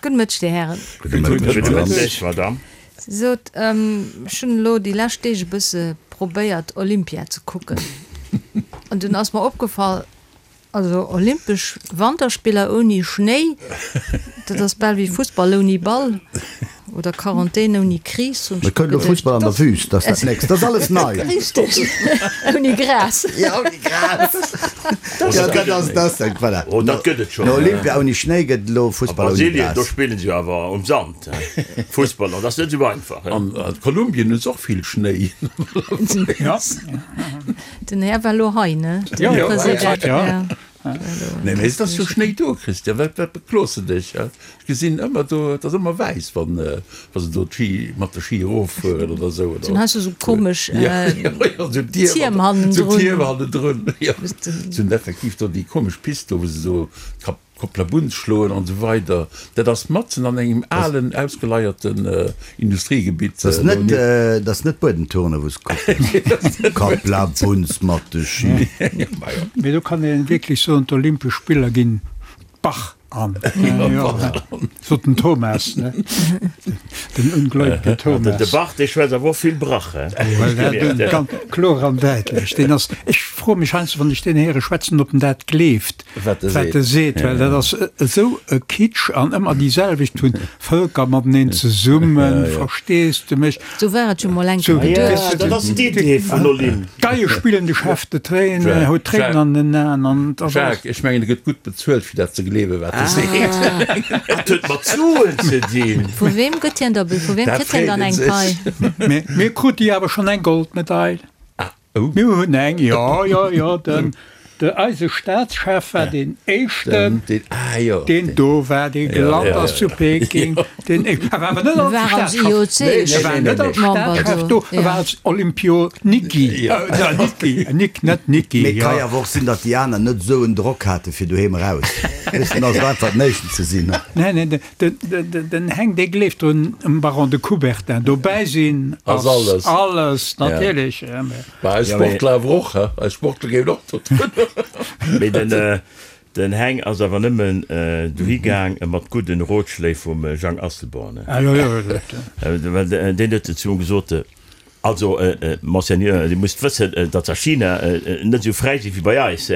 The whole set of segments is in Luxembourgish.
Gudde Mëtteg, Dir Hären. Gudde Mëtteg, Madame. Sot, ech hunn elo déi lescht Deeg e bësse probéiert, Olympia ze kucken. An dunn ass mer opgefall, also Olympesch Wanterspiller ouni Schnéi, dat ass bal wéi Fussball ouni Ball oder Quarantän ouni Kris, hunn ech mer geduecht. Elo Fussball an der Wüst, dat ass dat nächst. Dat ass alles nei. Richteg, ouni Gras. Jo, ouni Gras. Jo, dat ass dat, voilà. Oh, dat gëtt et schonn. No Olympia ouni Schnéi gëtt et elo Fussball ouni Gras. A Brasilien, do spillen se jo awer um Sand Fussball, an dat ass net esou einfach. An Kolumbien hu se och vill Schnéi. Den Här war elo hei, ne? Den President, ja. Nee, mee et ass jo Schnéi do, Christian. Wat, wat beklos de dech? Ech gesinn ëmmer do, et ass ëmmer wäiss, wann, wa se do d'Ski, mat de Ski eroffueren oder esou, oder? Dann has du esou komesch Tierm hannendrun. Esou Tierm hannendrun, jo. Se hunn effektiv do déi komesch Pist do, wou se esou d'Kap. Koplabunz schloen an esou weider. Dat ass matzen an engem alen, ausgeleierten Industriegebitt. Dat ass net, dat ass net Buedemturne wou se kucken. Koplabunz mat de Ski. Mee do kann ee wierklech soen, d'Olympesch Spiller ginn d'Bach an. Sot den Thomas, ne? Den ungläubige Thomas. De Bach, dee schwätzt awer och vill Brach, he? Ganz kloer an däitlech. Deen ass, ech froe mech heiansdo, wann ech deen héiere schwätzen, ob en dat gleeft. Wat e wat e seet, well dat ass esou e Kitsch an ëmmer déi selwecht vun Vëlker mateneen zesummen, verstees de mech? Sou war et jo mol eng Kéier geduecht. Dat ass d'Idee vun Olymp. D'Geie spillen de Chef de Tréin, huet Tréinen an den Aen an et ass alles. Jacques, ech mengen e gëtt gutt bezuelt fir dat ze gleewen wat e seet. Dat huet mat Suen ze dinn. Vu weem gëtt hien da, vu weem kritt hien dann eng Pai? Mee mir krute jo awer schonn eng Goldmedail. Oh. Mir hunn eng, jo, jo, jo, den, de, eise Staatschef war deen éischten, Den, ah jo. deen do war, dee gelant ass zu Peking, deen éischten, e war awer net E als war als Staatschef, IOC e war net als Member Staatschef do, do, e ja. war als Olympioniki, Ja. äh, Niki, Nik, net Niki, Mee ka jo. jo awer och sinn, datt déi aner net esou en Drock hate fir doheem eraus, weess de, dann ass et einfach den éischten ze sinn. Nee, nee, de, Den Heng, dee gleeft drun, um Baron de Coubertin dobäi sinn ass alles, alles natierlech. Mä eis Sportler awer och, he? Eis Sportler géiwen och do drun. Mee den Heng ass awer nëmmen dohi gaang mat gudden Rotschléi vum Jang Asselborn, he? Well deen huet zu him gesot, Also, Monseigneur, Dir musst wëssen, datt se a China net esou fräi si wéi bei eis.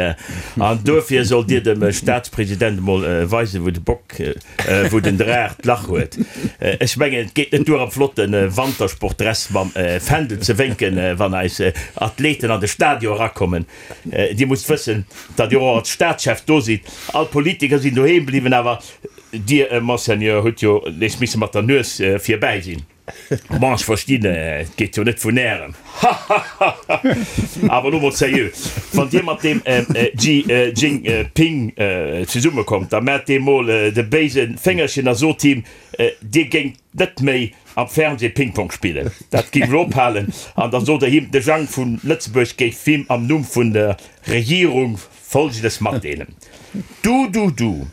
An duerfir sollt Dir dem Staatspresident emol weisen, wou de Bock, wou den Draach d'Lach huet. Ech mengen, et geet net duer, am flotte Wantersportdress mam Fändel ze wénken, wann eis Athleten an de Stadion erakommen. Dir musst wëssen, datt Dir och als Staatschef do sidd. All d'Politiker sinn doheem bliwwen, awer Dir, Monseigneur, hutt jo nees misse mat der Nues virbäi sinn. Bon, ech verstinn, et geet jo net vun Ärem. Hahahaha. Awer elo mol sérieux, wann Dir mat deem Xi Jinping zesumme kommt, da maacht deem mol de béise Féngerchen a sot him, Dir géingt net méi am Fernseh Ping-Pong spillen. Dat géif elo ophalen. An da sot Der him, de Jang vu Lëtzebuerg géif him am Numm vun der Regierung Folgendes matdeelen, Du, du, du.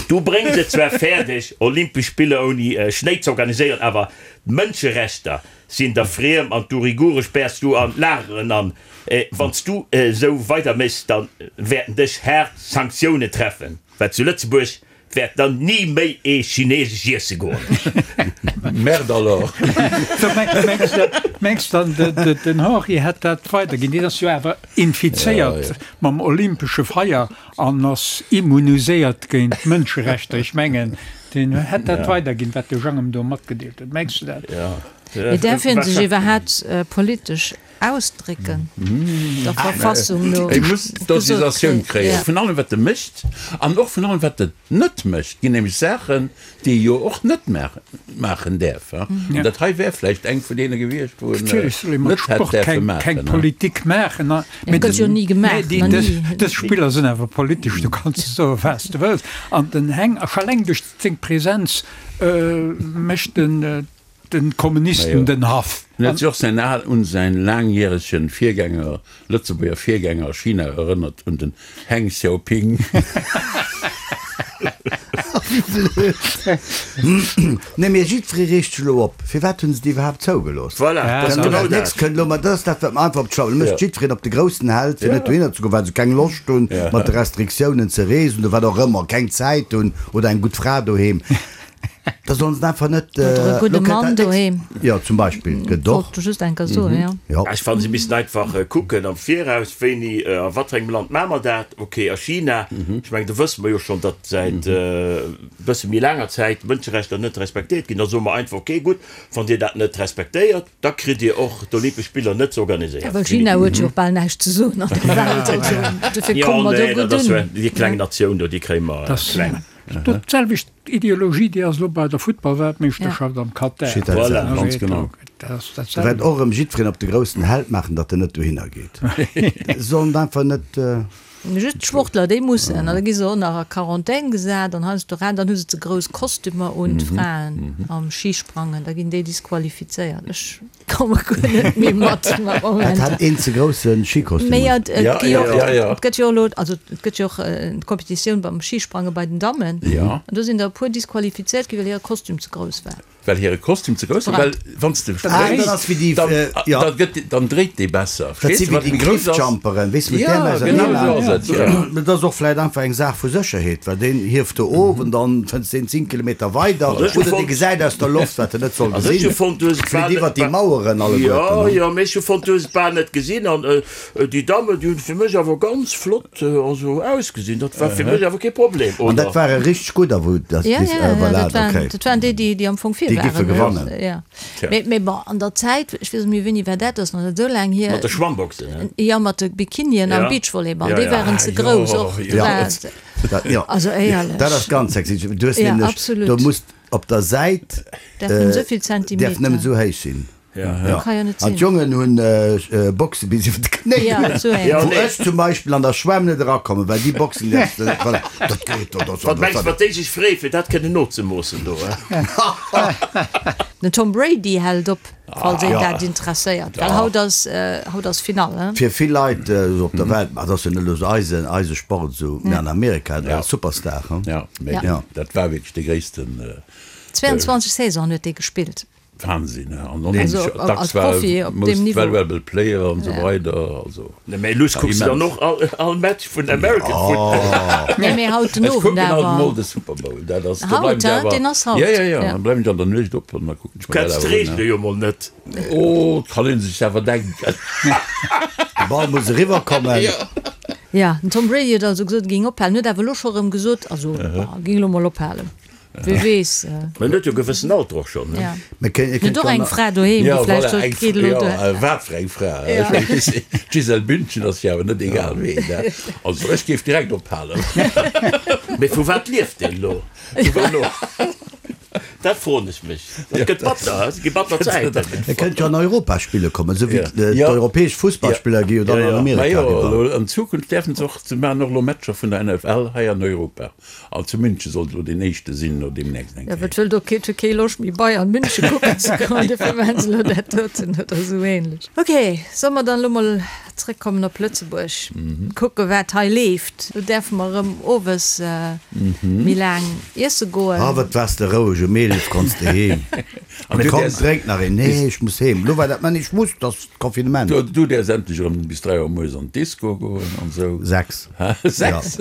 Du bréngs et zwar fäerdeg, Olympesch Spiller ouni Schnéi z'organiséieren, awer d'Mënscherechter sinn der friem an d'Urigure späers du an d'Lageren an. Wann s du esou weider méchs, da wäerten dech haart Sanktiounen treffen, well zu Lëtzebuerg wäert dann ni méi ee Chineesesch iesse goen. Merde alors! Mengs dann den Henri hätt dat weiderginn? Deen ass jo awer infizéiert mam olympesche Feier. An ass immuniséiert géint d'Mënscherechter. Ech mengen, deen hätt dat weiderginn, wat de Jang em do matgedeelt huet. Mengs du dat? Mee däerf een sech iwwerhaapt politesch ausdrécken, der Verfassung no? E muss d'Autorisatioun kréien vun allem, wat e mécht, an och vun allem, wat en net mécht. Et ginn nämlech Saachen, déi ee jo och net maachen däerf. An dat hei wär vläicht eng vun deene gewiescht, wou en net hätt däerfe maachen. Keng Politik maachen. Mee gëtt jo ni gemaach, nach ni. Dës Spiller sinn awer politesch, du kanns soe wat s de wëlls. An den Heng, scho eleng duerch seng Presenz, mécht den de Kommunisten den Haff. En huet sech och säin al un säin laangjäregen Virgänger, Lëtzebuerger Virgänger a China erënnert, un den Heng Xiaoping. Wéi blöd! Nee, mee jiddweree reegt sech elo op. Firwat hunn se déi iwwerhaapt zougelooss? Voilà, dat ass genau dat. Nächst kënnt elo, ma dat ass dat, wat mer einfach op d'Schlaue mécht jiddwereen op de groussen Held, fir net dohinner ze goen, well se keng Loscht hunn, mat de Restriktiounen ze reesen oder wat och ëmmer, keng Zäit hunn oder eng gutt Fra doheem. Da sollen se einfach net. Oder e gudde Mann doheem. Jo, zum Beispill gëtt och. Wollt just eng Kéier soen, jo. Jo. Ech fannen, se missten einfach kucken am Viraus, wéini a wat fir engem Land maache mer dat. Ok, a China, ech mengen, do wësse mer jo schonn, datt säit e bësse méi laanger Zäit d'Mënscherechter net respektéiert ginn. Da soe mer einfach, ok, gutt, wann Dir dat net respektéiert, da kritt Dir och d'Olympesch Spiller net ze organiséieren. Well China huet jo och bal näischt ze soen an der Welt, also dofir komme mer do gutt un. Déi kleng Natioun do, déi kréie mer kleng. Dat d'selwecht Ideologie, déi ass elo bei der Futtballweltmeeschterschaft am Katar. Voilà, ganz genau. Da wäert och erëm jiddwereen op de groussen Held maachen, datt en net dohinner geet. Sollen einfach net. Just d'Sportler, déi mussen, an da gi se och nach a Quarantän gesat an heiansdo ran, dann hu se ze grouss Kostümer un, d'Fraen am Schisprangen, da ginn déi disqualifizéiert. Ech komme guer net méi mat am Moment. Hat een ze grousse Schikostüm un? Mee et gi jo och, et gëtt jo elo, also et gëtt jo och d'Kompetitioun beim Schisprange bei den Dammen, an do sinn der e puer disqualifizéiert gi well hire Kostüm ze grouss war. Well hire Kostüm ze grouss war, well wann s de spréngs, dann gëtt, dann dréit dee besser. Dat si wéi déi Cliffjumperen, weess de, mat där Genau esou ass et, jo. Dat ass och vläit einfach eng Saach vu Sécherheet, well deen hieft do of an dann fënns deen 10 Kilometer weider oder dee gesäit aus der Loft, wat en net soll gesinn, flitt iwwert déi Maueren alleguerten. Jo, jo, mee ech hu fonnt, du hues et bal net gesinn an déi Damme, déi hunn fir mech awer ganz flott Also ausgesinn, dat war fir mech awer kee Problem, oder? An dat ware richteg gudder, wou dat Ja, ja, ja, voilà, dat waren, okay. dat waren déi, déi, déi am Fong vir Déi giffe waren. gewannen. Ja. Tja. Mee, mee bon, an der Zäit, ech weess net méi, wéini war dat, dat ass nach net esou laang hier. Mat de Schwammboxen, ne? Ja, mat de Bikinien am Ja. Beachvolleyball, Ja, déi ja. waren Ah, ze grouss jo, och. jo. Ja. War, Dat, ja. also éierlech. Dat ass ganz sexistesch. Du hues Ja, nämlech, absolut. do muss op der Säit, Därf nëmmen esou vill däerf Zentimeter. nëmmen esou héich sinn. Ja. Kann jo net An sinn. d'Jongen hunn Boxe bis iwwer d'Knéi. Ja, sou eng. Wou ech zum Beispill an der Schwämm net erakommen, well déi Boxen däerfs de net. Voilà, dat geet do, dat Wat mengs de, wat déi sech freeë fir dat kënnen nozemoossen do, he? Den Tom Brady hält op, falls een dat interesséiert, well haut ass, haut ass Finall, he? Fir vill Leit esou op der Welt, ma et ass jo net elo esou eisen, eise Sport esou, mä an Amerika, dat ass Superstar, he? Ja, mä dat war wierklech de gréissten. 22 Saisonen huet dee gespillt. Wahnsinn, he? An onheemlech, dacks war e most valuable player an esou weider, also. Nee, mee lues kucks de dann och all Match vun American Football. Nee, mee haut den Ech Owend kucken haut awer. mol de Super Bowl, dat ass, do Haut, bleiwen ech he? awer. Deen ass haut. Ja, ja, ja, dann bleiwen ech an der Nuecht op an da kucken Du ech mer kenns dat awer un, d'Reegele he? jo mol net. Oh, 't kann een sech awer denken. De Ball muss eriwwer kommen. Ja, den Tom Brady huet also gesot, e géing ophalen, huet awer elo scho erëm gesot, also, e géing elo mol ophalen. Wie weess. Mä en huet jo e gewëssen Alter och schonn, ne? Mä En huet och eng Fra doheem, déi Ja, vläicht voilà, sot, eng geet elo ja, duer. wat fir eng Fra. Ech mengen, weess de, d'Gisèle Bündchen ass jo awer net egal ween, ne? Also ech géif direkt ophalen. Mee vu wat lieft deen elo? Vu wat elo? Dat froen ech mech. Dat gëtt batter, he? Et gi batter Zäiten. E kënnt jo an Europa spille kommen, esou wéi Ja. d'europäesch Fussballspiller gi jo dann an Ma Amerika jo, eriwwer. elo an Zukunft däerfen se och, se maachen och elo Matcher vun der NFL hei an Europa. An zu München sollt elo deen éischte sinn, no deemnächst eng Jo, Kéier. wat wëllt och kee, huet kee Loscht méi Bayern München kucken ze goen, dofir maachen se elo dat doten oder esou ähnlech. Ok, solle mer dann elo mol zréckkommen op Lëtzebuerg, kucke wat hei leeft. Elo däerfe mer erëm owes méi laang iesse goen. Ah, wat waars de roueg, um 11 konns de heem. An du Komm, däers. drénk nach een. Nee, ech muss heem. Elo war dat, mä nee, ech muss, et ass Confinement. Du, du däers endlech erëm bis 3 Auer mueres an d'Disco goen an esou. 6. 6?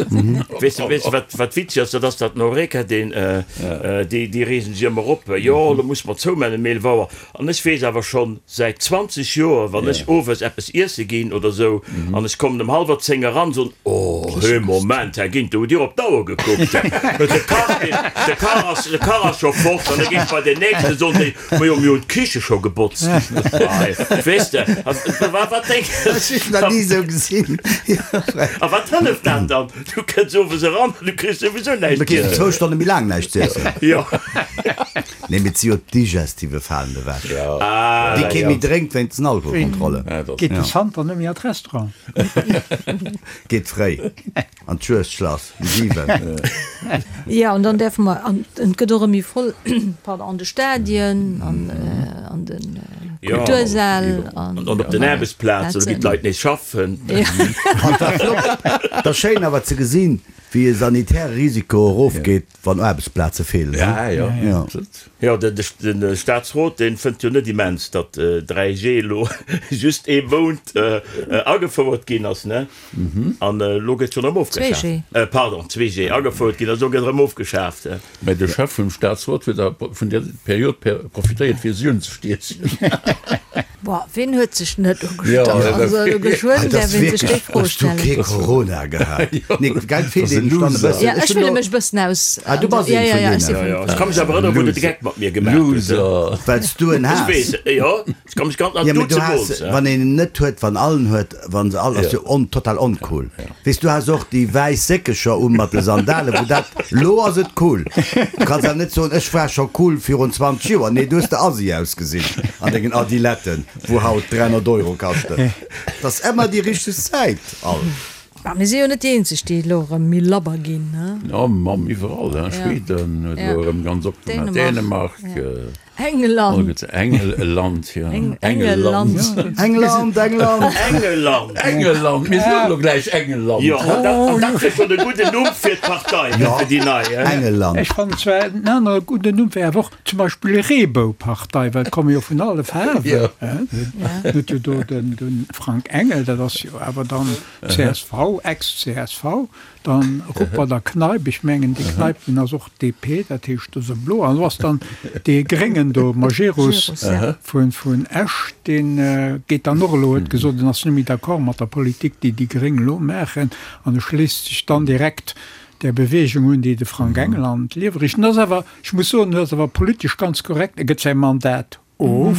Weess de, weess de, wat, wat witzeg ass? Dat ass dat den Horeca, deen, déi, déi reegen sech ëmmer op, jo, elo musse mer zoumaachen um 11 Auer. An ech weess awer schonn säit 20 Joer, wann ech owes eppes iesse ginn oder esou, an ech kommen ëm hallwer 10 eran, soen, Oh, hee, Moment, Här Ginter, hutt Dir op d'Auer gekuckt? De Kach, deen, de Kach ass, de Kach ass scho fort. An da ginn ech bei deen nächsten, soen déi, Majo, mir hunn d'Kiche scho gebotzt. Weess de, a wat denk. Ech hunn nach ni esou gesinn. A wat hëlleft dat dann? Du kënns owes eran an du kriss souwisou näischt Da kriss z'iessen. de zwou Stonne méi laang näischt z'iessen. Jo. Nee, mee et si jo d'Digestive falen ewech. Ah, Déi kee jo. méi drénkt wéinst den Alkoholkontrollen. Geet de Santer net méi an d'Restaurant? Geet fréi an d'Juegdschlass um 7. Jo, an dann däerfe mer, an et gëtt och erëm méi voll, pardon, an de Stadien, an an de. Kultursäll an op den Aarbechtsplazen, do ginn d'Leit nees schaffen. An et war flott, et ass schéin awer ze gesinn, wéi e sanitäre Risiko erofgeet, wann Aarbechtsplaze feelen. Jo, Jo, de Staatsrot, dee fënnt jo net immens, datt 3G elo just ee Mount agefouert ginn ass, ne? An elo gëtt schonn erëm ofgeschaaft. 2G. Pardon, 2G agefouert ginn ass, elo gëtt erëm ofgeschaaft. Mä de Chef vum Staatsrot huet da vun där Period profitéiert, fir si unzestiechen. Boah, ween huet sech net ugestach? Also elo geschwënn däerf een sech déi Fro stellen. Hues du kee Corona gehat? Nee, gell, et feelt een dann e bëssen. Ja, ech fille mech e bëssen aus. Ah, du bass een vun deenen. Jo, jo, ech ka mech awer erënneren, wou de de Geck mat mir gemaach huet. Loser. Well s du en has. Ech weess, jo, ech ka mech ganz nach, Ja, mee du has, wann een en net huet, wann all en huet, wann se all, ass jo on, total oncool. Weess, du has och déi wäiss Séckecher u mat de Sandalen, wou dat, lo ass et cool. Du kanns awer net soen, ech war scho cool virun 20 Joer. Nee, du hues de Assi ausgesinn an dengen Adiletten, wou haut 300 Euro kaschten. Et ass ëmmer déi richteg Zäit alt. Mä mir si jo net déi eenzeg, déi elo erëm méi labber ginn, ne? Jo, Mamm, iwwerall, hein. Schweden huet elo erëm ganz opgemaach, Dänemark. England. Engeland, jo. Engeland. England, England. Engeland. Engeland, mir soen elo gläich Engeland. Jo, an dat, an dat wier schonn e gudden Numm fir d'Partei, Jo, fir déi nei, hein. Engeland. Ech fannen zwar en anere gudden Numm wär awer och zum Beispill Reeboupartei, well et komme jo vun alle Faarwen, hein. Huet jo do den, de Frank Engel, dat ass jo awer dann csv, Ex-CSV. Dann Ruppert a Kneip, ech mengen dee Kneip deen ass och DP, dat heescht do ass e Blo. An do ass dann dee Gréngen do, Majerus vun vun Esch, dee geet dann och elo, huet gesot, en ass net méi d'accord mat der Politik déi déi Gréng elo maachen an e schléisst sech dann direkt där Beweegung un, déi de Frank Engel an d'Liewe richt. En ass awer, ech muss soen, en ass awer politesch ganz korrekt, e gëtt säi Mandat of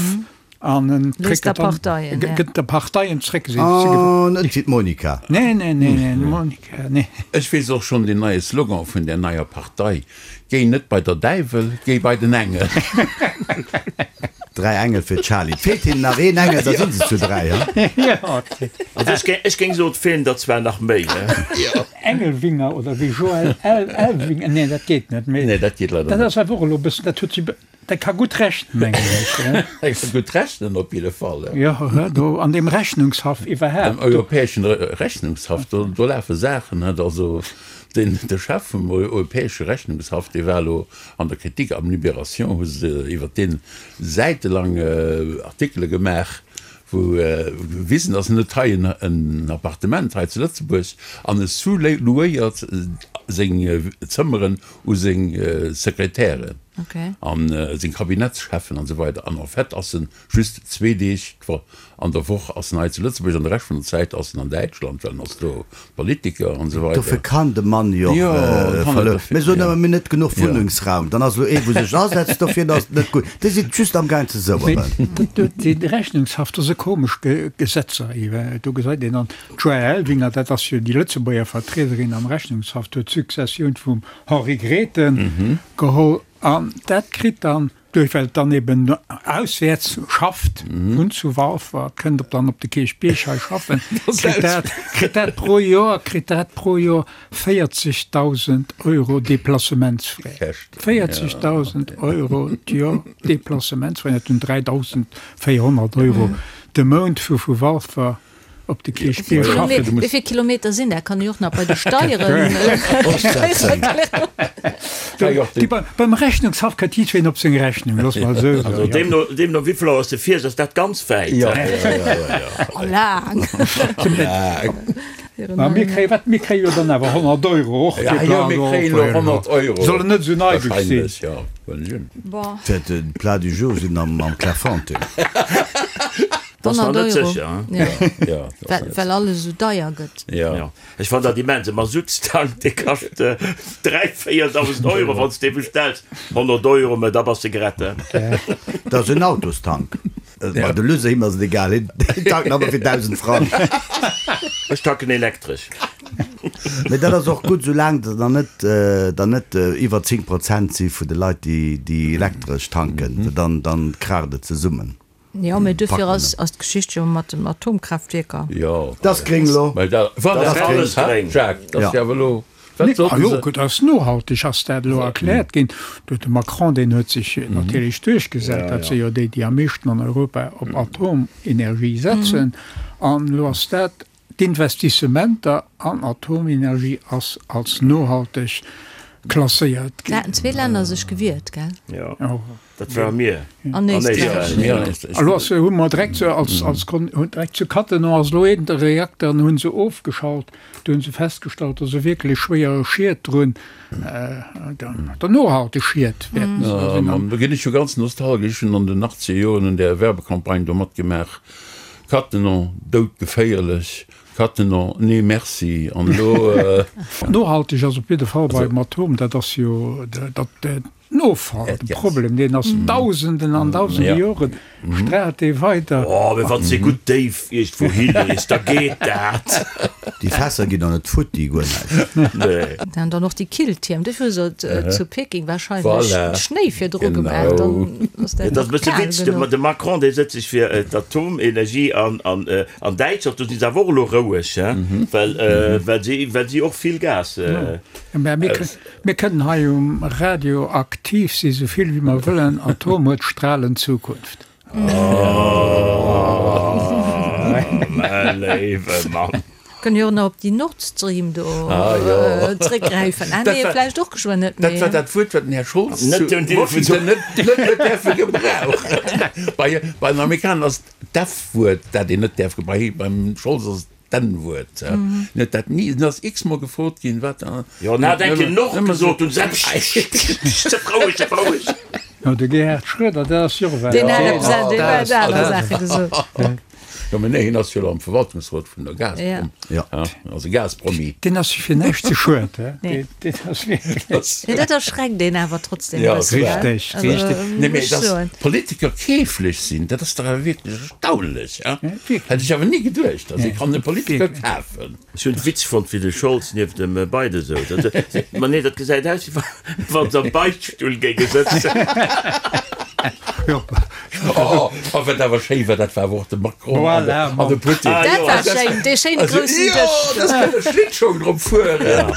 an en kritt et dann, gëtt de Parteien zréck. Oh, net wéi d'Monica. Nee, nee, nee, nee, d'Monica, nee. Ech weess och schonn den neie Slogan vun där neier Partei, Géi net bei der Däiwel, géi bei den Engel. Dräi Engel fir d'Charlie. Et feelt hinnen nach een Engel, da si se zu dräi, he? Also ech géing soen, et feelen der zwar nach méi, he? Engelwinger oder wéi Joël Elwinger, nee, dat geet net méi. Nee, dat geet leider net. Dat ass awer och elo e bëssen, dat huet si. Dat ka gutt rechnen, mengen ech. Dat ka gutt rechnen op jidde Fall. Jo, do an deem Rechnungshaff iwwerhaapt. Am Europäeschen Rechnungshaff, do, do lafe Saachen, net? Also den, de Chef vum Europäesche Rechnungshaff, dee war elo an der Kritik, am Libération hu se iwwert dee säitelang Artikele gemaach, wou gewisen ass, en huet hei en Appartement hei zu Lëtzebuerg an e sous-louéiert seng Zëmmeren u seng Sekretären an seng Kabinettscheffen an esou weider. An en fait ass en just zwee Deeg an der Woch ass en hei zu Lëtzebuerg an de Rescht vun der Zäit ass en an Däitschland, well en ass do Politiker an esou weider. Dofir kann de Mann jo och verluer. Mir soen ëmmer, mir hunn net genuch Wunnengsraum. Dann ass elo ee wou sech asetzt dofir, dann ass et net gutt. Dir sidd just amgaang ze soueren. Déi Rechnungshaft, do si komesch Gesetzer. Do gesäit een dann, D'Joëlle Elvinger, dat ass jo déi Lëtzebuerger Vertriederin am Rechnungshaff, huet d'Successioun vum Henri Grethen geholl an dat kritt dann, duerch well et dann eben auswäerts schafft, wunnt zu Walfer, kënnt op dann op de Kierchbierg hei schaffen, kritt dat, kritt dat pro Joer, kritt dat pro Joer 40.000 Euro Deplacementsfrais. 40.000 Euro d'Joer Deplacementsfrais, dat hunn 3.400 Euro de Mount fir vu Walfer Op de Kierchbierg schaffen. Wéi vill Kilometer sinn dat? Kann ech och nach bei de Steieren erklären. Beim Rechnungshaff kënnt jiddwereen op seng Rechnung, looss mer esou soen. Also deemno, deemno wéi vill Auer s de fiers, ass dat ganz wäit. Oh, laang. Ma mir kréie wat? Mir kréie jo dann awer 100 Euro och. Ja, jo, mir kréien elo 100 Euro. Soll en net esou neideg sinn. Wahrscheinlech, jo. Bon. Fir de Plat du jour sinn am Clairefontaine. Dat ass nach net sécher. Ja. Well alles esou deier gëtt. Ja. Ech fann dat immens. E Masuttstank, dee kascht 3, 4.000 Euro, wann s de dee bestells. 100 Euro, mä da bass de gerett. Dat ass en Autostank. Ma de Lusse, him ass et egal, hien tankt nach emol fir 1.000 Frang. Ech tanken elektresch. Mee dat ass och gutt, soulaang der dann net, der net iwwer 10 Prozent si vun de Leit, déi elektresch tanken, dann, dann kraacht et zesummen. Jo, mee duerfir ass d'Geschicht jo mat den Atomkraaftwierker. Jo. Dat ass gréng elo. Dat ass alles gréng. Jacques, dat ass jo awer elo. Wat sollten se? Ah jo, dat ass nohalteg, ass dat elo erkläert ginn. Do huet de Macron, deen huet sech natierlech duerchgesat. Dat si jo déi, déi am meeschten an Europa op Atomenergie setzen. An elo ass dat, d'Investissementer an Atomenergie ass als nohalteg klasséiert ginn. Da haten zwee Länner sech gewiert, gell? Jo. Dat ware mir an Éisträich. Elo ass, hu mer direkt zu, als, als Kon, hunn direkt zu Cattenom ass elo een Reakter an hu se ofgeschalt. Do hu se festgestallt, dass e wierklech schwéiere Schied drun, der nohalteg Schied wäerten se da sinn. An do ginn ech jo ganz nostalgesch, ech hunn an den achtzeger Joren un där Werbecampagne do matgemaach, Cattenom, doudgeféierlech, Cattenom, nee merci. An elo. Nohalteg ass op jidde Fall beim Atom, dat ass jo dat, Den Offall, de Problem, deen ass Dausenden an Dausende Joren, straalt dee weider. Oh, mee wann s de gutt déif iergendwou hilees, da geet dat. Déi Fässer ginn der net futti, guer näischt. Nee. An dann och déi Killtierm, dofir hu se zu Peking wahrscheinlech Schnéi virdru gemaach, dann ass dat Et ass e nach bësse kal Witz, de genuch. de Macron, dee sëtzt sech fir d'Atomenergie an an Däitschland, do si se awer och elo roueg, hein, well well si well si och vill Gas. Mä mir Mir kënnen hei um Radio aktiv si sou vill wéi mer wëllen, Atom huet stralend Zukunft. Oh, mä léiwe Mann. Kënne jo och nach op déi Nord Stream do zréckgräifen. Ah nee, vläicht och geschwënn net méi. Dat war dat Wuert, wat den Här Scholz zu Washington net huet däerfe gebrauchen. Bei den Amerikaner ass d'F-Wuert, dat een net däerf gebrauchen. Beim Scholz ass et D'N-Wuert, en huet dat ni, en ass x-mol gefrot ginn, wat. Jo, en hat eng Kéier Nord gesot, hunn se, Pssst, pssst, sëff roueg, sëff roueg. Jo, de Gerhard Schröder, dat ass jo och Deen hat eppes, deen huet aner Saache gesot. Jo, mä nee, hien ass jo elo am Verwaltungsrot vun der Gazprom. Jo. Ass e Gaspromi. Deen ass sech fir näischt ze schued, hä? Nee. Deen ass wierklech. Nee, dat erschreckt een awer trotzdem e Ja, bësse, gell? Richtig, Also, richtig. Nee, muss mä ech dass soen. Politiker keeflech sinn, dat ass dach awer wierklech erstaunlech, hä? Wierklech. Hätt ech awer ni geduecht, dass ee kann e Politiker Wierklech. kafen. Ech hunn Witz fonnt wéi de Scholz nieft dem Biden souz. Ma nee, dat gesäit aus wéi wann se am Beichtstull géinge sëtzen. Oh, a wat awer schéi war, dat war awer och de Macron an de, Voilà, an de Putin. Dat war schéin, dee schéine groussen Jo, Dësch. dass kënne Schlittschong drop fueren.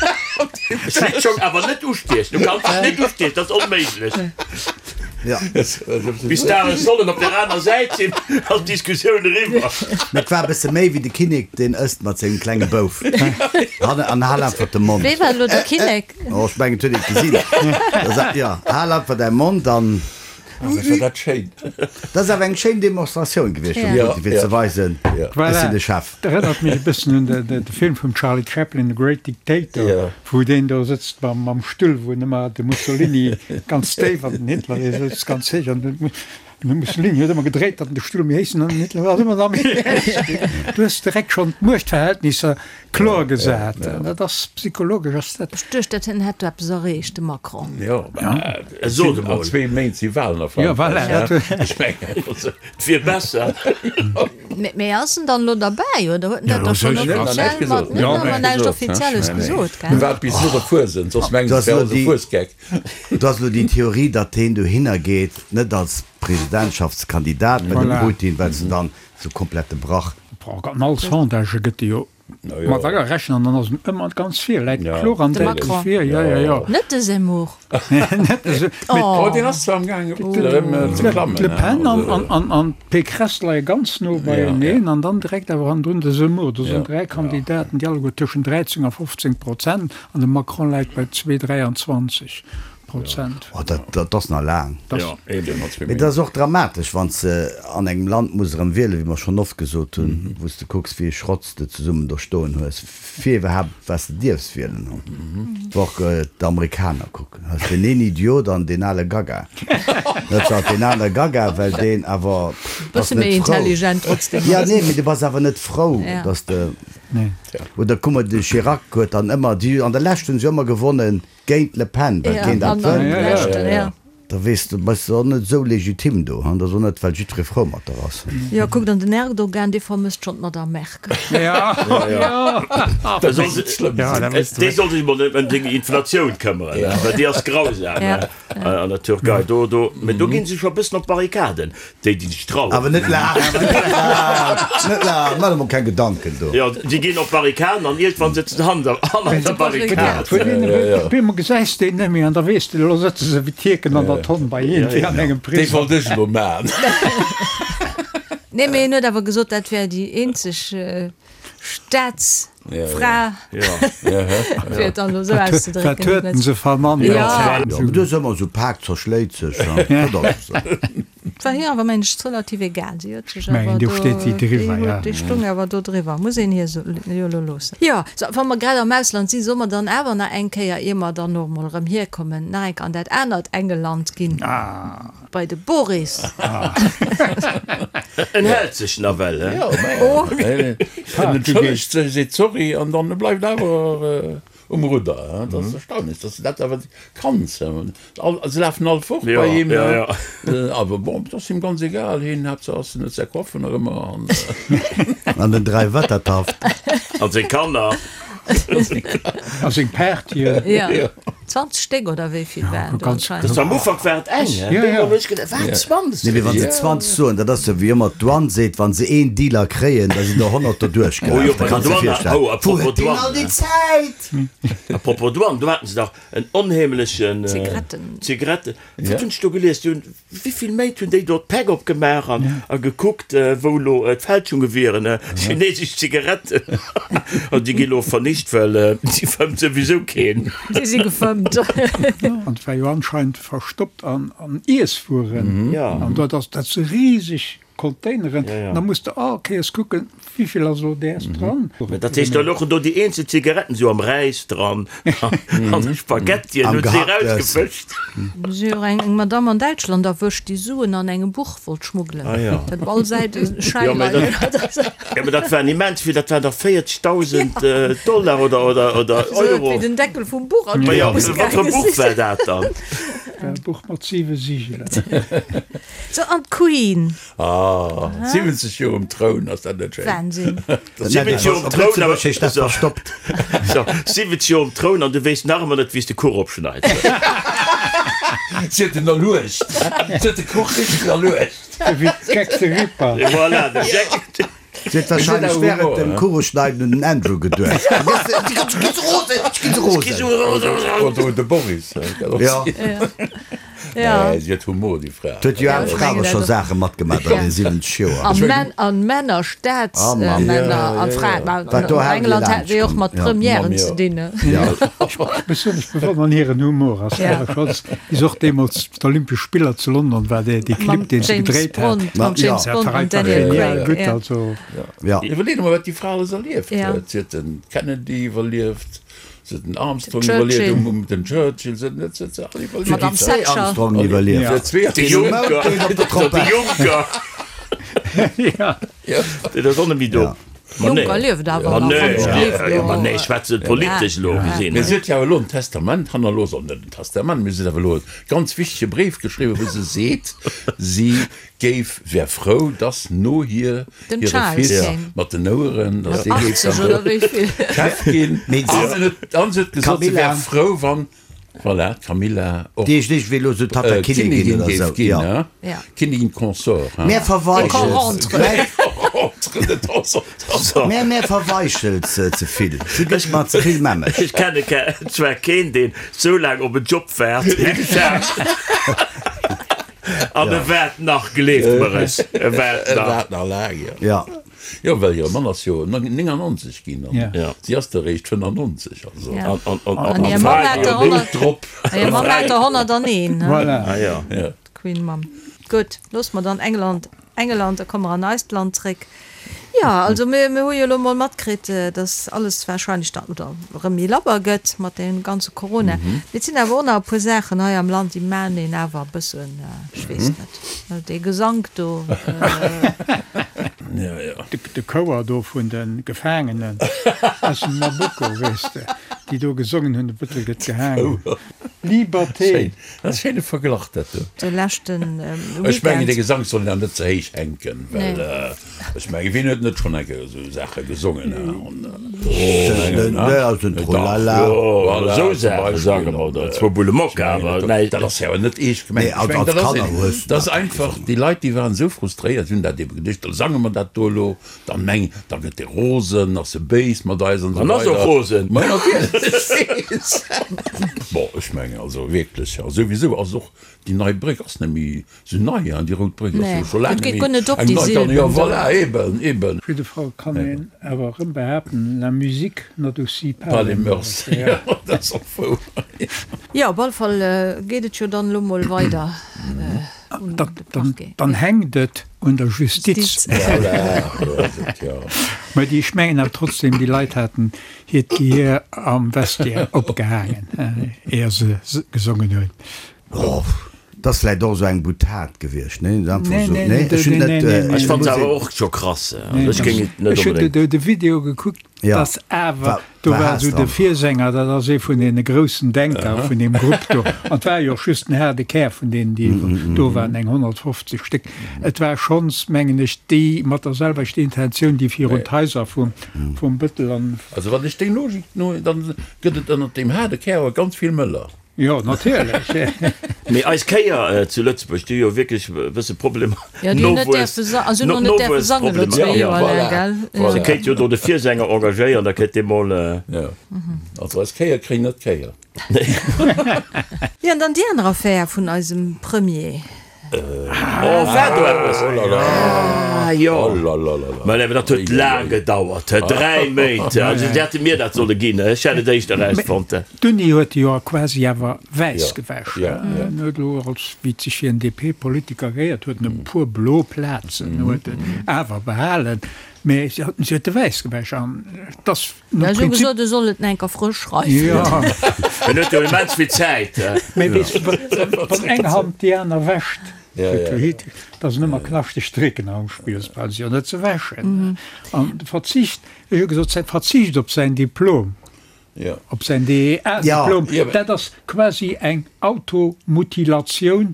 Schlittschong awer net ustiechen, du kanns dech net ustiechen, dat ass onméiglech. Ja. Bis d'Aen sollen op der aner Säit sinn, ass d'Diskussioun eriwwer. Mee et war e bësse méi wéi de Kinnek, deen ësst mat sengem klenge Bouf. Hanne an hal einfach de Mond. Wee war elo de Kinnek? Oh, ech mengen, et huet een et gesinn. Da sa, jo, hal einfach däi Mond an. Wat war dat schéin! Dat ass awer eng schéin Demonstratioun gewiescht vum Putin, fir ze weisen, ech sinn de Chef. Dat erënnert mech e bëssen un de Film vum Charlie Chaplin, The Great Dictator, wou deen do sëtzt mam Stull, wou en ëmmer de Mussolini ganz déif an den Hitler, dee sëtzt ganz héich an de Mussolini huet ëmmer gedréit, datt en de Stull méi héich an den Hitler war ëmmer nach méi héich. Du hues direkt schonn d'Muechtverhältnisser Kloer gesat, dat ass psychologesch ass dat. Ech duecht dat hien hätt do eppes erreecht, de Macron. Jo, mä et sinn an zwee Méint si Walen a Frankräich, ech mengen. Et wier besser. Mee ass en dann elo derbäi oder huet en dat da schonn offiziell mat? Net awer näischt Offizielles gesot, gell? Waart bis no der Fuesent, soss mengen se, et wär alles e Fuesgeck. Do ass elo déi Theorie, datt heen dohinner geet, net als Presidentschaftskandidat, mä de Putin, well se dann sou komplett de Brach. An all Sondagë gëtt e jo mat agerechent an dann ass en ëmmer ganz vir, läit kloer an däitlech vir. Jo, jo, jo. Net de Zemmour. Net de Zemmour. Oh, deen ass zwar am gaange erëm ze klammen. D'Le Pen an d'Pécresse leie ganz no beieneen an dann direkt awer hannendrun de Zemmour. Do sinn 3 Kandidaten, déi alleguer tëschent 13 a 15 Prozent an de Macron läit bei zwee 23. Prozent. Oh, dat, dat ass nach laang. Jo, eben, mat Mee dat ass och dramatesch, wann s de an engem Land muss erëm wielen, wéi mer schonn oft gesot hunn, wou s de kucks, wéi e Schrott s de zesummen do stoen hues, fir iwwerhaapt wat s de dierfs wielen. Wa och d'Amerikaner kucken, hues deen een Idiot an deen ale Gaga. Net zwar deen ale Gaga, well deen awer bass Bësse méi net frou. intelligent trotzdem Ja, ass. nee, mee du bass awer net frou, dass de, oder kuck mol, de Chirac huet dann ëmmer, déi an der Lescht hunn se ëmmer gewonnen, Géint d'Le Pen, well keen dat wëllt. Da weess de, bass de och net esou legitim do, han? Dat ass och net, well jiddweree frou mat der ass. Jo, kuckt, an den Erdogan, dee vermësst schonn d'Madame Merkel. Dee soll sech mol ëm seng Inflatioun këmmeren, well déi ass grausam. An der Türkei, do, do, mä do ginn se scho e bëssen op d'Barrikaden, déi, déi sech trauen. Awer net laang, net laang, net laang, maach der mol keng Gedanken do. Jo, déi ginn op d'Barrikaden an iergendwann sëtzen se hannert der Barrikad. Op eemol gesäis de een net méi an da weess de, elo sëtze se wéi d'Tierken an der Tonn bei iergendwéi an engem Prisong. Déi wollt ech elo maachen. Nee, mee en huet awer gesot, dat wär déi eenzeg Staatsfra, fir et dann elo esou auszedrécken. Wat huet en se vernannt? Jo, mee do ass ëmmer esou, Pak zerschléit sech, dat ass esou. Et war hir awer, mengen ech, relativ egal. Si huet sech awer do, déi stoung awer do driwwer, muss een hir jo elo loossen. Jo, sou, wa mer grad am Ausland sinn, solle mer dann awer nach eng Kéier, ier mer dann och emol erëm hierkommen, nach eng Kéier an dat anert Engeland ginn. Bei de Boris. En hält sech nawell, he? Jo, mä en entschëllegt sech, seet sorry an dann bleift awer um Rudder. Dat ass erstaunlech, dass de dat awer kanns. Se lafen all fort bei him, awer bon, et ass him ganz egal. Hien, Haaptsaach ass, en huet säi Coiffer nach ëmmer an. An den Dräiwettertaft. An seng Kanner. A seng Partyen. Jo. 20 Stéck oder wéi vill waren do anscheinend? Das am Ufank war et eng, hä? Ja, ja. Hunn ech gedacht, wat, 20? Nee, mee wann se 20 soen, dat ass jo wéi ëmmer d'Douane seet, wann se een Dealer kréien, da sinn der 100 derduerch Oh jo, gelaf. Da bei der kanns de Douane, virstellen, oh, wou apropos huet deen all Douane, déi Zäit? Apropos Douane, do haten se dach en onheemlechen Zigaretten. Zigaretten. Wat hunn ech do gelies? Déi hunn, wéivill Méint hunn déi do d'Päck opgemaach an a gekuckt, wou elo d'Fälschunge wieren, chinesesch Zigaretten. An déi gi lo vernicht, well déi fëmmt souwisou keen. Déi si gefëmmt. An et war jo anscheinend verstoppt an Iesswueren. An dat ass, dat si riseg Containeren, da muss de all Kéiers kucken, wéivill ass elo däers dran. Mä dat heescht, da louchen do déi eenzel Zigaretten esou am Räis dran an de Spaghettien Am hunn se Gehacktes. erausgefëscht. Do si jo eng Madamm an Däitschland erwëscht, déi Suen an engem Buch wollt schmuggelen. Ah ja. Dat op all Säit e Schäi Jo, mä leien dat, hat. jo, mä dat waren immens vill, dat waren dach 40.000 Dollar oder, oder, oder Esou Euro. wéi den Deckel vum Buch an Ma d'Buch jo, muss wat fir e gaange Buch sinn. war dat dann? E Buch mat siwe Sigelen. So, an d'Queen. Ah, 70 Joer um Troun, ass dat net schéin? Wahnsinn. 70 Joer um Op Troun, awer Lëtzebuerg heescht dat verstoppt. So, 70 Joer um Troun an du weess nach ëmmer net, wéi s de Kuch opschneits. Si huet en erluecht. Si huet de Kuch richteg erluecht. Wéi Jack the Ripper. Voilà, de Jack. Si huet wahrscheinlech während dem Kucheschneiden un den Andrew geduecht. Ech gi sou rosen, ech gi sou rosen. Oder un de Boris. Jo. Nee, si huet Humor, déi Fra. Huet jo aner Fra awer scho Saache matgemaach an den 70 Joer. An Männer, Staatsmänner a Fraen. Wat do An haut England hat se jo och mat Premièren ze dinn. Ech besonnesch bewonneren hiren Humor. Ass awer schonns, wéi se och deemools d'Olympesch Spiller zu London war, dee Clip, deen se gedréit hat. Mam James Dat Bond war an einfach Daniel genial Craig. gutt. Also. Ja. Iwwerleet emol, wat déi Fra alles erlieft huet. Si huet de Kennedy iwwerlieft. Se huet den Armstrong iwwerlieft, um, um, den Churchill, se huet, se huet se all iwwerlieft. Madame Zwee Thatcher. Armstrongen iwwerlieft. Se huet zwee De Juncker, Den Mound, den op der de Trompett. Juncker, Ja. deen ass och net méi do. Ja. Ma nee. Juncker lieft awer Ma nach, nee, wann ech gleef ja, ma elo. nee, ech schwätze politesch elo gesinn. Mee se huet jo awer elo en Testament hannerlooss, oder net en Testament, mee se huet awer elo e ganz wichtege Bréif geschriwwen, wou se seet, si géif, wär frou, dass no hir Den hire Charles Fils kéim. mat den Oueren, dass dee géif 80 dann oder do wéi vill. Chef ginn. Mee An se huet, an se huet gesot, se wär Camilla. frou, wann, voilà, d'Camilla och Déi ech wéi elo sou Tatta Kinnigin Kinnigin oder géif sou, ginn, jo. hein? Ja. Kinnigin consort, hein? Mär verweichels, Rentre. Rentre de temps en temps. mär, mär verweichels se ze vill. Si gëtt mer ze vill mämmeg. Ech kenne zwar keen, deen sou laang op en Job waart wéi de Charles. An e waart nach, gleeft mer es, e waart E nach. waart nach laang, jo. Ja. Jo, well hire Mann ass jo 99 ginn an Ja. si ass der eréischt 95, also. Ja. An, an, an, An hir Mamm hat der 100, drop. hir Mamm hat der 101, ne? Voilà. Ah ja. Ja. D'Queen Mamm. Gutt, loosse mer dann England Engeland, da komme mer an eist Land zréck. Jo, also mir, mir hu jo elo mol matkritt, dass alles warscheinlech dann, oder erëm méi labber gëtt mat deem ganze Corona. Mee et sinn awer och nach e puer Saachen hei am Land, déi maachen een awer e bëssen, ech weess net, dee Gesank do. De Chouer do vun de Gefaangenen aus dem Nabucco, weess de, déi do gesongen hunn, de Bëttel gëtt gehaangen. Liberté. Schéin, dat ass e schéine Verglach dat do. De leschten Weekend. Ech mengen dee Gesank soll een awer net ze héich hänken, well ech mengen wien huet net schonn eng Kéier esou Saache gesongen Esou Saache sange mer oder zwou Bulle Mokka, awer näischt. Dat ass jo awer net eescht gemengt. Ech mengen dat ass een, dat ass einfach, déi Leit déi waren esou frustréiert, déi hunn dat ebe geduecht, da sange mer dat do elo. Dann meng, da gëtt e rosen, ass e béis mat eis an esou weider. An ass och rosen. Ma natierlech. Bon, ech mengen also wierklech, a souwisou ass och déi nei Bréck ass net méi esou nei, hein, déi rout Bréck ass jo scho laang net méi eng nei. Dann, jo voilà, eben, eben. Op jidde Fall kann een awer erëm behaapten, la musique n'adoucit pas les mœurs. Jo, dat ass och wouer. Jo, op alle Fall geet et jo dann elo mol weider. Dann hänkt et un der Justiz. Mä déi, ech mengen awer trotzdem, déi Leit haten hiert Gehier am Vestiaire opgehaangen, éier se gesongen hunn. Dat ass vläicht och esou eng Boutade gewiescht, nee? Nee, nee, nee, Ech hunn net. Ech fannen se awer och scho krass. Also ech géing et net onbedéngt. Ech hunn de Video gekuckt. Ja. Dass awer, do war esou de Virsänger, dat ass ee vun deene groussen Denker vun deem Grupp do, an et war jo och just den haarde Kär vun deenen, déi do waren, eng 150 Stéck. Et war schonns, mengen ech, déi mat der selwechter Intentioun, déi virun d'Haiser vum vum Bëttel an. Also wann ech deng Logik no, dann gëtt et ënnert deem haarde Kär awer ganz vill Mëller. Jo, natierlech. Mee eis Kéier zu Lëtzebuerg, déi hu jo wierklech e bësse Problemer, Jo, déi hunn net däerfe sa-, also hunn och net däerfe sangen elo zwee Joer laang, gell? Voilà. Se kéint jo do de Virsänger engagéieren, da kéint dee mol. Jo, also eis Kéier kréien net d'Kéier. Jo, an dann déi aner Affär vun eisem Premier. Oh, war do eppes? Oh la la. Ah, jo. Oh la la la la. Mä awer dat huet laang gedauert, he, 3 Méint. Also se hätte mir dat solle ginn, ech hätt et éischter erausfonnt. D'Uni huet e jo quasi awer wäiss gewäsch. Ja, ja. En huet elo, als wéi et sech fir en DP-Politiker gehéiert, huet en e puer blo Plazen huet en awer behalen, mä si huet e wäiss gewäsch an et ass No Ech hu gesot, e soll et enker frësch schreiwen. Jo. En huet jo immens vill Zäit. Mee weess de, wann eng Hand déi aner wäscht, da sinn ëmmer knaschteg Drécken am Spill, se brauche se jo net ze wäschen. An de Verzicht, ech hu gesot, säi Verzicht op säin Diplom, op säin DEA-Diplom, dat ass quasi eng Automutilatioun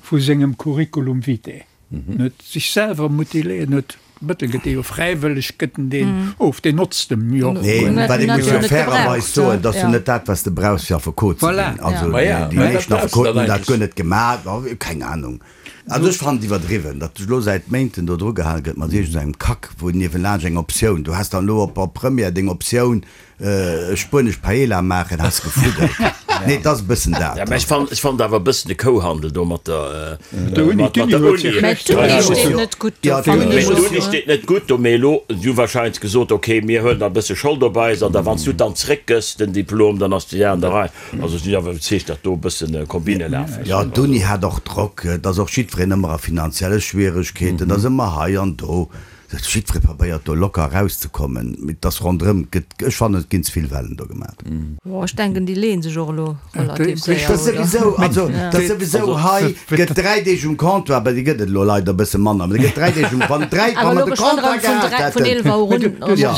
vu sengem Curriculum vitae. En huet sech selwer mutiléiert, en huet Mëttel gëtt dee jo fräiwëlleg, gëtt en deen of, deen notzt em jo och Nee, guer net. wat ee muss jo fairerweis soen, dat ass jo net dat, wat s de brauchs fir Affekot ze Voilà. ginn. Also déi meeschten Affekoten hunn dat guer net gemaach, keng Anung. Also ech fannen et iwwerdriwwen, datt elo säit Méinten do dru gehale gëtt mat iergend engem Kack, wou niewelaanscht eng Optioun, du has dann elo op op Première deng Optioun, Spuenesch Paella maachen, has gefuddelt. Nee, et ass e bëssen dat. Ja, mä ech fannen, ech fannen awer e bëssen de Kouhandel do mat der, Der Uni, mat d'Uni der huet sech Uni. Mä schlecht d'Uni gemaach. steet net gutt do, Ja, fannen Mä ech och. d'Uni steet net gutt do, mee elo, si hu wahrscheinlech gesot, okay, mir huelen da e bësse Schold op eis an da wann s du et dann zréckgëss, den Diplom, dann ass déi Saach an der Rei. Also ech sinn awer iwwerzeegt, datt do e bëssen Kombine lafen. Ja, d'Uni hat och Drock. Et ass och jiddwereen ëmmer a finanzielle Schwieregkeeten, et ass ëmmer hei an do. Jiddweree probéiert do locker erauszekommen, mee et ass ronderëm gëtt, ech fannen et ginn ze vill Wellen do gemat. Bon, ech denken déi leeën sech och elo relativ séier, Dat oder? souwisou, also dat souwisou, hei gëtt 3 Deeg um Comptoir, bei déi gëtt et elo leider e bësse manner, mee gëtt 3 Deeg um, wann 3, wa Awer mer elo de geschwënn Comptoir erëm vun gehat 3, vun hätten, 11 Auer un, jo, ja,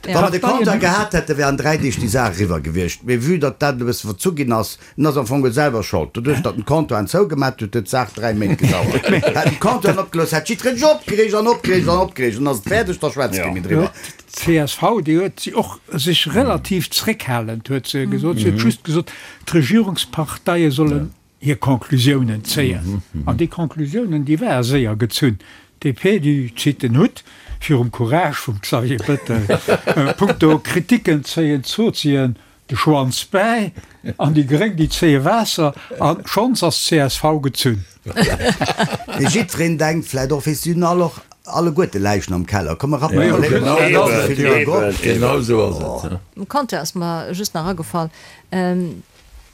wa mer de Comptoir ja. gehat hätten, wär an 3 Deeg déi Saach eriwwer gewiescht, mee vue datt dat elo e bësse verzu ginn ass, En ass am Fong selwer Schold. Doduerch, datt en d'Comptoiren zougemat huet, huet d'Saach 3 Méint gedauert. Hätt en d'Comptoiren opgelooss, hätt jiddwereen sech opgereegt an opgereegt an opgereegt. An ass et fäerdeg, da schwätzt kee méi driwwer. D'CSV, déi huet si och sech relativ zréckhalend, huet se gesot. Si huet just gesot, d'Regierungsparteie sollen hir Conclusiounen zéien. An déi Conclusiounen, déi ware séier gezunn. DP, déi zitt den Hutt virum Courage vum Xavier Bettel. Punkto Kriticken zéien d'Sozien De Schwanz bäi an déi Gréng déi zéie Waasser an schonns ass csv gezunn. Mee jiddwereen denkt vläit och, weess, si hunn all och alleguerte Läichen am Keller, komm mer rappen Eben, mol eben, eben, genau esou ass et. Um Compteur ass mer just nach agefall,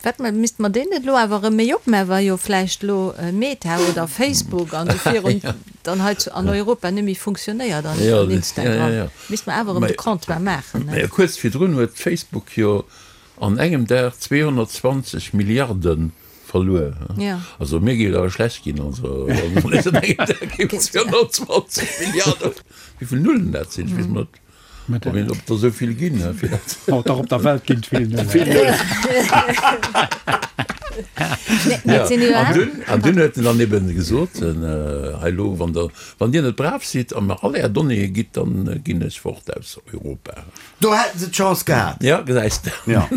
wat mer, misste mer deen net elo awer erëm méi opmaachen, wa jo vläicht elo Meta oder Facebook an esou virun dann hei zu an Europa net méi funktionéiert an Instagram. Misst mer awer erëm de Comptoir maachen, ne? Mä kuerz virdrun huet Facebook jo an engem Dag 220 Milliarde verluer. Jo. Also mir géif et awer schlecht ginn, also wann mir an engem Dag géifen 220 Milliarde, wéi vill Nullen dat sinn, ech weess mol net, ob een, ob der esou vill ginn, fir dat. Oh dach, op der Welt ginn et vill Nullen. Vill Nullen. An dunn, an dunn huet en dann eben gesot, hei elo, wann der, wann Dir net brav sidd a mer all Är Donnéeë gitt, dann ginn ech fort aus Europa. Do hätten se d'Chance gehat. Ja, gesäis de. Ja.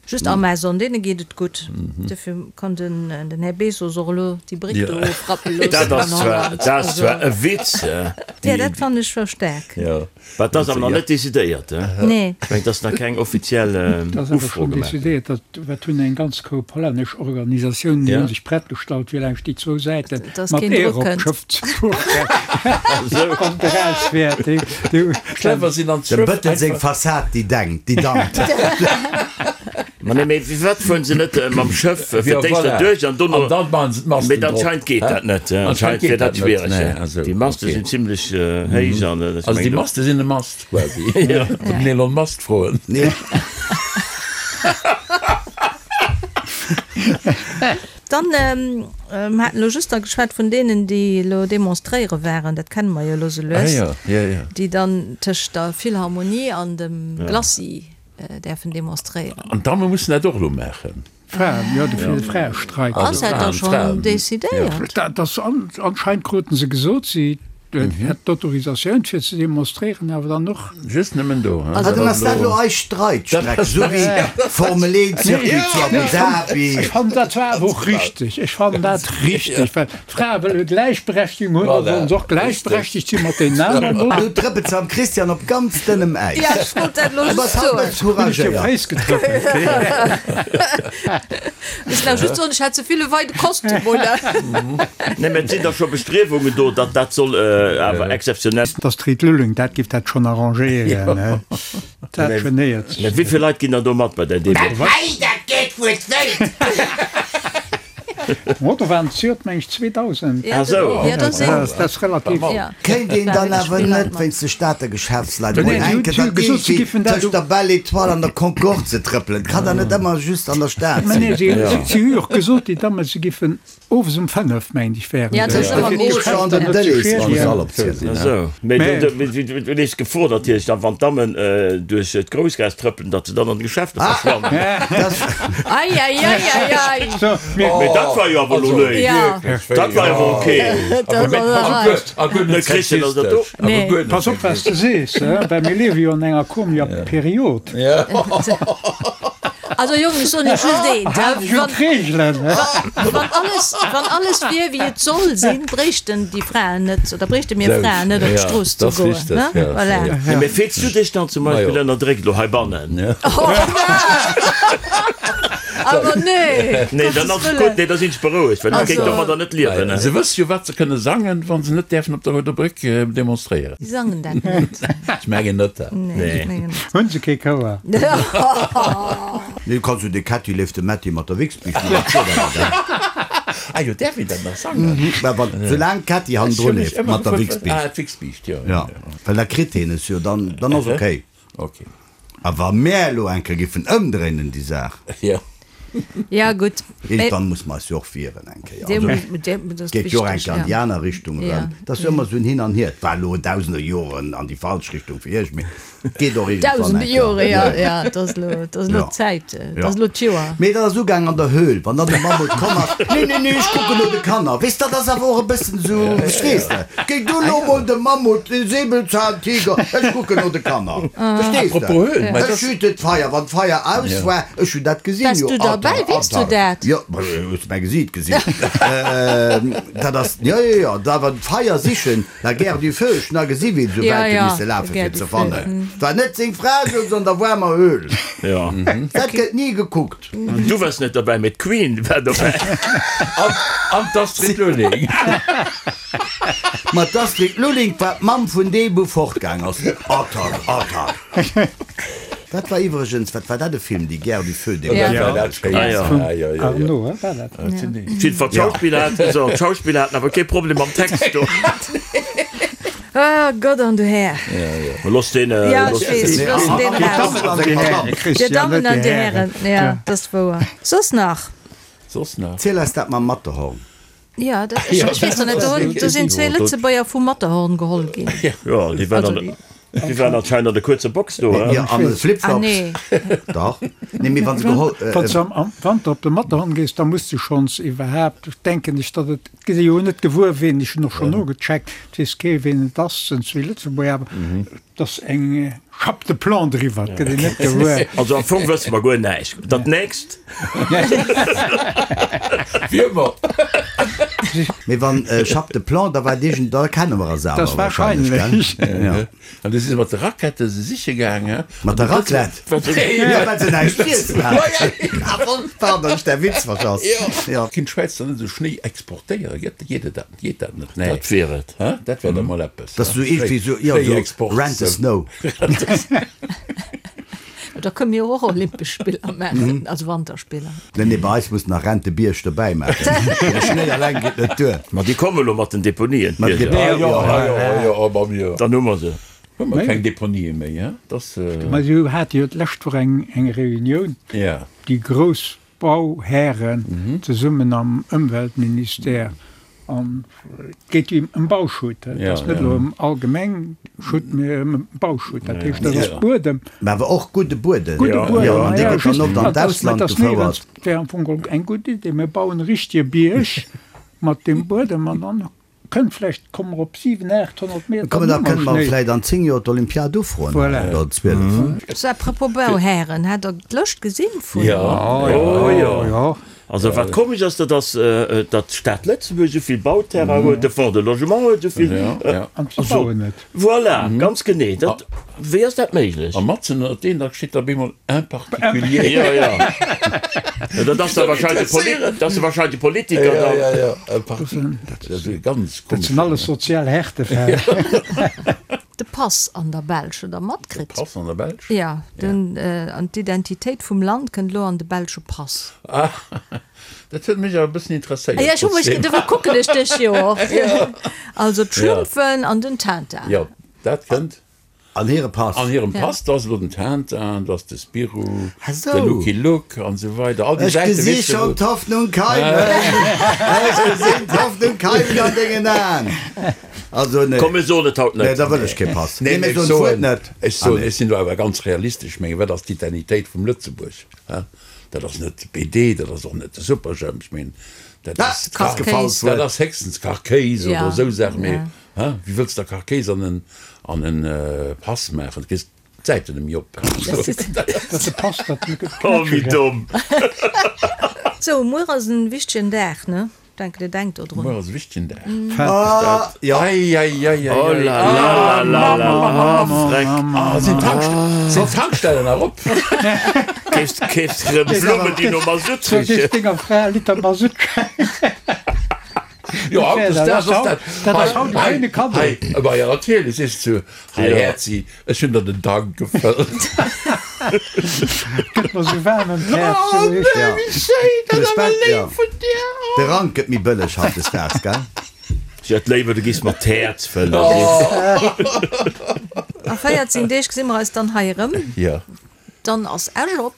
Just Amazon, deene geet et gutt. Dofir kann den, den Här Bezos och elo déi Bréck do ofrappe loossen Dat an ass zwar, Holland. dat ass zwar e Witz, Ja, déi, dat fannen ech scho staark. Ja. Wat dat ass awer nach net decidéiert, he? Nee. Ech mengen, et ass nach keng offiziell Dat ass awer Ufro schonn gemaach ginn. decidéiert. Dat wat hunn eng ganz Koup hollännesch Organisatiounen, déi Ja. hu sech prett gestallt, fir laanscht déi zwou Säiten Dass mat keen Eer Drock op kënnt. d'Schëff ze fueren. Wann et eraus wär, déi, déi hu. Clever sinn an Dem d'Schëff Bëttel seng einfach. Fassad, déi denkt, déi dankt. Ma nee, mee firwat fueren se net mam Schëff fir Ja, d'éischt voilà. derduerch an dono. An dann maachen se d'Masten Mee drop. anscheinend geet Hä? dat net, anscheinend Anscheinend wier geet dat dat net. schwiereg. Nee, also, Déi Maste okay. sinn zimlech héich an ech Also déi mengen do. Maste sinn e Mast quasi. Den Elon Musk froen. Nee. Dann, mer haten elo just da geschwat vun deenen, déi elo demonstréiere waren, dat kenne mer jo elo sou Ah lues, jo, jo, jo. déi dann tëscht der Philharmonie an dem Glacis däerfen demonstréieren. An d'Damme mussen dat och elo maachen. Fraen, jo, de fir de Fraestreik. Ass dat da schonn decidéiert? Dat ass anscheinend kruten se gesot, si hätt d'Autorisatioun fir ze demonstréieren, awer dann och. Just nëmmen do, he? Ah, dann ass dat elo eis Streitstreck, esou wéi Formel 1 Circuit zu Abu Dhabi. Ech fannen dat zwar awer och richteg, ech fannen dat richteg, well d'Frae wëlle Gläichberechtigung hunn, da sollen se och gläichberechtegt si mat deenen aneren, oder? Do trëppelt se am Christian op ganz dënnem Äis. Ja, ech wollt dat elo Du just bass haut soen. net Hunn ech dir op couragéiert. d'Féiss getrëppelt? Ech nach just soen, ech hat ze vill e weide Kostüm un. Nee, mä et sinn da scho Bestriewungen do, datt dat soll awer exzeptionell. D'Astrid Lulling, dat giff dat schonn arrangéieren, he? Dat genéiert Mä sech wéi vill Leit ginn dann do mat bei där Demo? Hei, dat geet wuel wéit! Mo do waren zejoert meng ech 2000. Ah sou. Ja, dat sinn. Dat ass relativ. Kéint een dann awer net wéinst de Stater Geschäftsleit emol Nee, eng si hu Kéier gesot, si giffen dat tëscht der Belle Étoile an der Concorde ze trëppelen? Kann der net ëmmer just an der Stad Mä nee, sinn? si hu jo och gesot, déi Damme, se giffen owes um 5, mengt ech, wären Ja, se. dat ass ëmmer Fir groß. d'Geschäfter net ze schiedegen. Ah sou. Mee du lees d'Gefor natierlech dann, wann d'Dammen duerch d'Groussgaass trëppelen, datt se dann an de Geschäfter verschwannen. Ei, ei, ei, ei, ei. So, mir, Mee dat war jo awer elo léif. Dat war awer ok. A guer net sexistesch. Nee. Pass op, wat s de sees, he, well mir liewe jo an enger komischer Period. Also Jong, ech soen iech just eent, Hal dech un d'Reegelen, he. Wann alles, wann alles wier wéi et soll sinn, bréichten déi Fraen net, oder bréichte mir Fraen net op d'Strooss ze goen, ne? Voilà. Nee, mee fills du dech dann zum Beispill ënnerdréckt elo heibannen? Awer nee! Nee, dann ass et gutt, nee, da sinn ech berouegt, well ech kéint domadder net liewen. Se wësse jo, wat se kënne sangen, wa se net däerfen op der Rouder Bréck demonstréieren. Si sangen dat net. Ech mengen net. Nee, ech mengen net. Hunn se kee Chouer? Nee, du kanns jo de Kätti leeft de Mätti mat der Wichsbiischt mat der Kuer dat. Ah jo, däerf een dat nach sangen? Mä wann, soulaang d'Kätti hannendru leeft mat der Wichsbiischt. Ah, d'Wichsbiischt, jo. Ja, well da kritt heen es jo, dann, dann ass okay. Okay. A wa mär elo eng Kéier giffen ëmdréinen déi Saach. Jo. Ja, gutt. Iergendwann muss mer eis jo och wieren eng Kéier. Also, et geet jo och eng Kéier an déi aner Richtung erëm. Et ass jo ëmmer esou en Hin an Hier. Et war elo dausende Joren an déi falsch Richtung fir iech, mee et geet och iergendwann eng Dausende Kéier. Jore, ja, ja, et ass elo, et ass elo d'Zäit, et ass elo d'Joer. Mee dat ass ugaang an der Höhl, wann dann de Mammut komm ass, Nee, nee, nee, ech kucken no de Kanner. Weess, dat ass awer och e bëssen esou, verstees de? Géi du lo mol de Mammut, de Säbelzahntiger, ech kucken no de Kanner. Verstees de? Ech hüten d'Feier, wann d'Feier aus war, ech hunn dat gesinn, Waars jo, du derbäi? Atta, Weess du atta. dat? Jo, hues de mäi Gesiit gesinn? Dat ass, jo, jo, jo, da wann d'Feier sichen, la guerre du feu, ech hunn da gesi wéi se esou wäit hu misse lafen, fir ze fannen. Et war net seng Fra souz an der waarmer Höhl. Dat gëtt ni gekuckt. Du wars net derbäi, mee d'Queen war dobäi. An d'Astrid Lulling. Ma d'Astrid Lulling war d'Mamm vun deem wou fortgaang ass. Attack, attack. Dat war iwwregens, wat war dat e Film, déi Guerre du feu, dee Ja, dat schéin. Ah, ja. Vum Arnaud, he, war dat? Jiddwer d'Schauspiller haten, so, d'Schauspiller haten awer kee Problem mam Text do. Oh Gott an du Här. Looss deen, Ja, ech looss weess, deen. looss deen Dir raus. Dammen an Dir Hären, Dir Christian, Dammen net an Dir Dir Hären, ja, dat ass wouer. Soss nach? Soss nach? Ziel eis dat mam Matterhorn. Ja, dat, ech, ech weess noch net, do, do sinn zwee Lëtzebuerger vum Matterhorn geholl ginn. Jo, déi waren Also an déi. Déi waren anscheinend an de kuerze Box do, he? Jo, an de Flipflops. Dach. Nee, mee wa se geholl. Wann s de am Wanter op de Matterhorn gees, da muss de schonns iwwerhaapt, denken ech, datt et, et gëtt ee jo net gewuer ween, ech hunn och schonn nogecheckt, et weess kee ween et ass, sinn zwee Lëtzebuerger, awer et ass eng Chape de plomb driwwer, et gëtt een net gewuer. Also am Fong wësse mer guer näischt. Dat nächst. Wie ëmmer. Mee wann Chape de plomb, da war et iergend, da kenne mer eis awer wahrscheinlech, gell? Jo. An du si se mat de Rackette se siche gaang, he? Mat der Raclette? Jo, well se näischt z'iessen haten. Pardon, ech däi Witz verschass. Jo. Kinnt d'Schwäiz dann net esou Schnéi exportéieren? Gëtt, geet et dat, geet dat net? Nee. Dat wier et. He? Dat wär da mol eppes. Dat ass esou iergendwéi esou, jo, esou Rent the Snow. Da kënne mir och Olympesch Spiller maachen, also Wanterspiller. Nee, nee, bei eis muss nach Rent de Bierg dobäi maachen. De Schnéi alleng geet net duer. Ma déi komme lo mat den Deponien, Mat d'Bierger. Deponien, jo, jo, jo, ma mir. Dann hu mer se. Hu mer keng Deponië méi, hein? Dass. Ma si hate jo d'lescht Woch eng, eng Reunioun, déi grouss Bauhären zesummen am Ëmweltministère. An et geet jo ëm Bauschutt. Et ass net elo ëm allgemeng Schutt, mee ëm Bauschutt. Dat heescht, dat ass Buedem. Mä awer och gudde Buedem. Gudde Buedem, jo. An dee gëtt dann oft an d'Ausland gefouert. Et wär am Fong geholl eng gutt Idee. Mir bauen e richtege Bierg mat deem Buedem an dann kënnt vläicht, komme mer op 700, 800 Meter Kommen, da kënne mer vläicht an 10 Joer d'Olympiad ufroen, Voilà. oder 12. So, à propos Bauhären, hat Der d'Lëscht gesinn vun. Jo, jo, jo. Also wat komesch ass, dat ass, datt d'Stad Lëtzebuerg esou vill Bauterrain huet, de Fonds de Logement huet esou vill. An se bauen net. Voilà, ganz genee. Dat, wéi ass dat méiglech? A matzen ënnert deenen, da steet da bemol un particulier. Jo, jo. Dat ass da wahrscheinlech de Poli, dat ass da wahrscheinlech de Politiker dann. Jo, jo, jo, un particulier. Dat ass e ganz komesch. Dat sinn alles sozial Härtefäll. De Pass an der Belsch, hutt Der matkritt? De Pass an der Belsch? Jo, den, an d'Identitéit vum Land kënnt elo an de belsche Pass. Ah, dat huet mech awer e bëssen interesséiert. Ja, ech hu mech, dofir kucken ech dech jo och. Also d'Schlumpfen an den Tintin. Jo, dat kënnt. An hire Pass. An hirem Pass, do ass elo den Tintin, do ass de Spirou, de Lucky Luke an esou weider. All déi Ech Säiten, gesi weess de, schonn wou. d'Hoffnung keimen, ech gesinn d'Hoffnung keimen an dengen Aen. Also nee. Komm mir soen et haut net. Nee, da wëll ech kee Pass. Nee, Nee, mir ech soen d'Wuert soen, net. ech Ah soen, nee. ech sinn do awer ganz realistesch. Ech mengen, wat ass d'Identitéit vum Lëtzebuerg? Hä? Dat ass net de BD, dat ass och net de Superjhemp. Ech mengen, dat Ah, ass ass gefall Kachkéis. dat d'Wuert. ass héchstens Kachkéis oder Ja, esou Saachen. Mee ja. hä, wéi wëlls de da Kachkéis an en, an en Pass maachen? Du kriss d'Säiten net méi op. Dat de Pass dat net gëtt. Oh, wéi domm. Sou, muer ass en wichtegen Dag, ne? Denken dir denkt do drun. Muer ass e wichtegen Dag. Ah, jo. Ei, ei, ei, ei, Oh ei. la la la la la, ah, freck. Ah, sinn d'Tankst-, sinn d'Tankstellen nach op? Keefs, keefs rëm Blummen, déi no Masutt Soll richen. ech denger Fra e Liter Masutt schenken? Jo, haut ass dat, ass dat. Dat ass haut e schéine Kaddo. Hei, ma jo, natierlech, sees du, hei Häerzi, ech hunn der den Tank gefëllt. Gëtt mer sou waarm ëm d'Häerz. Oh nee, wéi schéin, dat ass awer léif vun dir. De Rank gëtt méi bëlleg hautdesdaags, gell? Ech hätt léiwer, du giss mer d'Häerz fëllen. A 14 Deeg gesi mer eis dann hei erëm. Jo. Dann ass Esch op.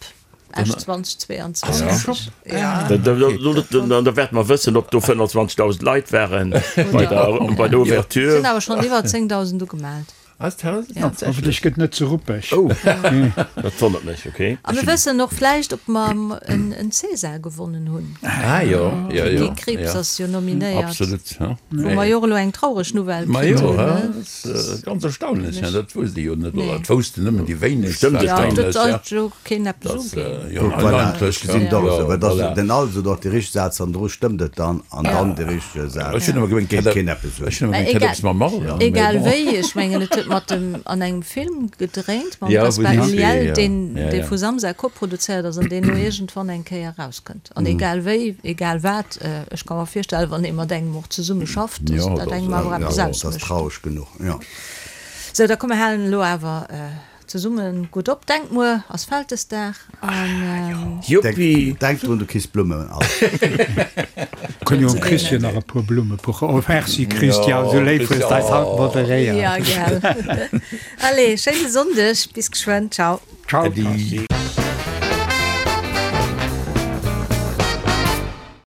Esch 2022. Ja. Da wäerte mer wëssen, ob do 25.000 Leit waren bei der, bei der Ouverture. Sinn awer schonn iwwer 10.000 ugemellt. Hoffentlech gëtt net ze ruppeg. Oh, dat wonnert mech, okay. A mir wëssen och vläicht, ob mer en César gewonnen hunn. Ah jo, jo, jo. Guy Krieps ass jo nominéiert. Absolut. Wou mer jo och elo eng traureg Nouvelle kritt hunn. Ma jo, dat ass ganz erstaunlech, dat wousst ee jo net, oder dat woussten nëmmen déi wéinegst. Stëmmt et dann? Dat sollt jo keen eppes uginn. Jo, Voilà, eigentlech, ech gesinn et och esou. ja, Et ass voilà. den also doch de richtege Saz, an dru stëmmt et dann, an dann de richtege Saz. Ech hunn ëmmer gemengt, Geet keen eppes un. ech hunn ëmmer gemengt, hätt eppes mam Marlon, mee Egal bon. wéi, ech mengen et huet mat dem an engem Film gedréint mam Ja, wou Gaspard déi zwee, Ulliel, ja. deen Ja, dee ja. vu Samsa koproduzéiert ass an deen elo iergendwann eng Kéier erauskënnt. An egal wéi, egal wat, ech ka mer virstellen, wann ee mat engem och zesumme schafft, dass Jo, dat dat engem awer Ja, eppes dat ass ausmécht. traureg genuch, jo. Sou, da komm mer halen elo awer Zesummen gutt op. Denkt muer ass Vältesdag an. Juppi! Denk drun, du kriss Blummen all. Kënn jo dem Christian nach e puer Blumme puchen. Oh merci Christian, sou léif hues d'eis haut moderéiert. Ja gell. Allez, schéine Sonndeg, bis geschwënn, ciao. Ciao. Äddi.